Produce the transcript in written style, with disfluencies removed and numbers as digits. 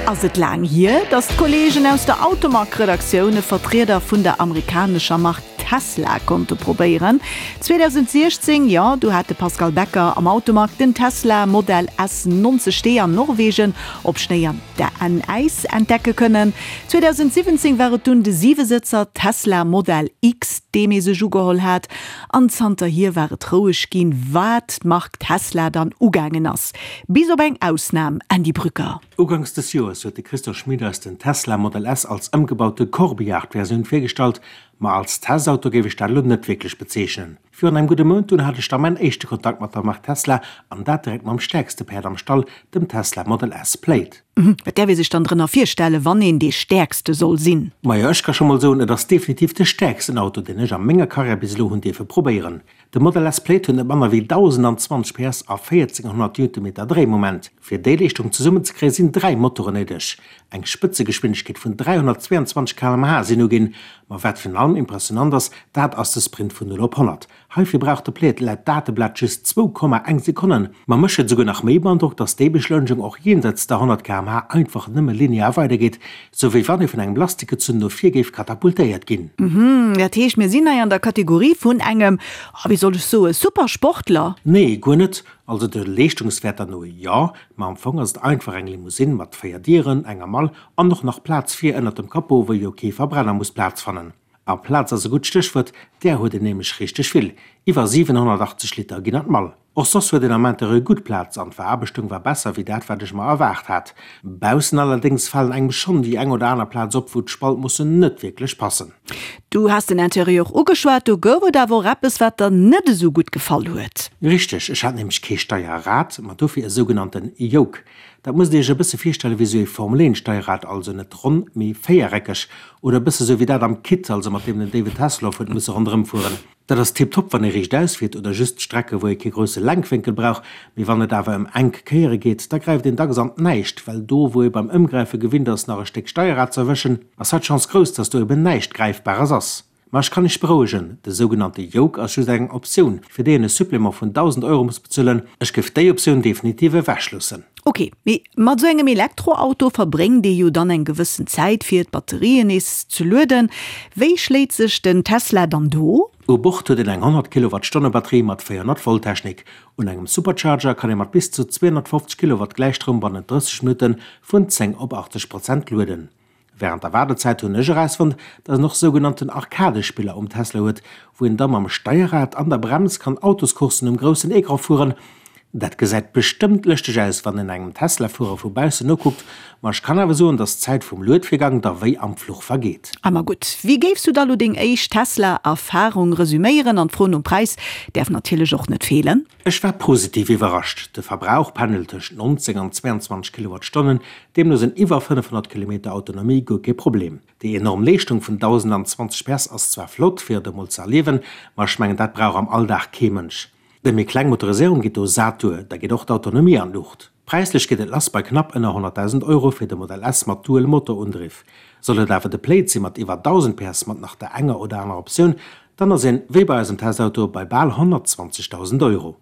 Ass et laang hier, datt d'Kolleegen aus der Automag-Redaktioun e Vertrieder vun der amerikanescher Mark Tesla konnte probéieren. 2016, jo, du hat de Pascal Becker am Automag den Tesla Modell S 90D an Norwegen op Schnéi an an Äis entdecke kënnen. 2017 war et dunn de Siwesëtzer Tesla Modell X, deem ee sech ugeholl hat. An zanterhier war et roueg ginn, wat d'Mark Tesla dann ugaangen ass. Bis op eng Ausnam, Andy Brücker. Uganks des Joers huet de Christoph Schmid eis den Tesla Model S als ëmgebaute Corbillard-Versioun virgestallt, ma als Testauto géif ech dat elo net wierklech bezeechnen. Virun engem gudde Mount dunn hat ech da mäin éischte Kontakt mat der Mark Tesla, an dat direkt mam stäerkste Päerd am Stall, dem Tesla Model S Plaid. Wat däerf ee sech dann drënner virstellen, wann een dee Stäerkste soll sinn? Majo, ech ka scho mol soen, et ass definitiv de stäerksten Auto, deen ech a menger Karriär bis elo hunn dierfe probéieren. De Model S Plaid huet net manner wéi 1.020 PS a 1.400 Newtonmeter Dréimoment. Fir déi Leeschtung zesummenzekréien, sinn 3 Motoren néideg. Eng Spëtzegeschwindegkeet vun 322 km/h sinn uginn. Ma wat virun allem impressionant ass, dat ass de Sprint vun 0 op 100. Heifir brauch de Plaid laut Dateblat just 2,1 Sekonnen. Ma mech huet esouguer nach méi beandrockt, dass déi Beschleunegung och jenseits der 100 km/h einfach nëmme linear weidergeet, sou wéi wann ee vun engem Lastik gezunn no vir géif katapultéiert ginn. Hm, dat heescht mir sinn hei an der Kategorie vun engem, wéi soll ech soen, Supersportler? Nee, guer net. Also de Leeschtungswäerter no jo, ma am Fong ass et einfach eng Limousine mat 4 Dieren, enger Mall an och nach Plaz vir ënnert dem Capot, wou jo kee Verbrenner muss Plaz fannen. A Plaz ass e gutt Stéchwuert, där huet een nämlech richteg vill, iwwer 780 Liter ginn an d'Mall. Och soss huet een am Interieur gutt Plaz an d'Veraarbechtung war besser wéi dat wat ech mer erwaart hat. Baussen allerdéngs falen engem schonn déi eng oder aner Plaz op, wou d'Spaltmoossen net wierklech passen. Du has den Interieur ugeschwat, do gouf et awer och eppes wat der net esou gutt gefall huet. Richteg, ech hat nämlech kee Steierrad, ma dofir e sougenannten Yoke. Dat musst dir iech e bësse virstelle wéi sou ee Formel 1 Steierrad, also net ronn, mee véiereckeg, oder e bësse sou wéi dat am Kit, also mat deem den David Hasselhoff huet musse ronderëm fueren. Dat ass tiptop wann ee riichtaus fiert oder just Strecke wou ee kee grousse Lenkwénkel brauch, mee wann et awer ëm enk Kéiere geet, da gräift een dacks an d'Näischt, well do wou ee beim Ëmgräife gewinnt ass nach e Stéck Steierrad ze erwëschen, ass hei d'Chance grouss, dass do eben näischt Gräifbares ass. Ma ech kann iech berouegen, de sougenannte Yoke ass just eng Optioun, fir déi een e Supplément vun 1.000 Euro muss bezuelen. Ech géif déi Optioun definitiv ewechloossen. Ok, mee mat esou engem Elektroauto verbréngt ee jo dann eng gewëssen Zäit fir d'Batterien nees ze lueden. Wéi schléit sech den Tesla dann do? U Bord huet een eng 100 Kilowattstonne Batterie mat 400 Volt Technik. Un engem Supercharger kann ee mat bis zu 250 Kilowatt Gläichstroum bannent 30 Minutte vun 10 op 80 Prozent lueden. Wärend der Waardezäit hunn ech erausfonnt, dass en och sougenannten Arcadespiller um Tesla huet, wou een da mam Steierrad an der Brems kann Autoscourssen um groussen Ecran fueren. Dat gesäit bestëmmt lëschteg aus, wann een engem Tesla-Fuerer vu baussen nokuckt, ma ech kann awer soen, dass d'Zäit vum Luedvirgang da wéi am Fluch vergeet. Ah ma gutt, wéi géifs du da lo deng éischt Tesla-Erfarung resüméieren? An d'Fro nom Präis däerf natierlech och net feelen. Ech war positiv iwwerrascht. De Verbrauch pendelt tëscht 19 an 22 Kilowattstonnen, deemno sinn iwwer 500 Kilometer Autonomie guer kee Problem. Déi enorm Leeschtung vun 1020 PS ass zwar flott fir et emol ze erliewen, ma ech mengen dat brauch am Alldag kee Mënsch. Déi méi kleng Motoriséierung geet do sat duer, da geet och d'Autonomie an d'Luucht. Präislech geet et lass bei knapp ënner 100.000 Euro fir de Modell S mat Dual-Motor-Undriff. Soll et awer de Plaid si mat iwwer 1.000 PS mat nach der enger oder anerer Optioun, dann ass een, wéi bei eisem Testauto, bei bal 120.000 Euro.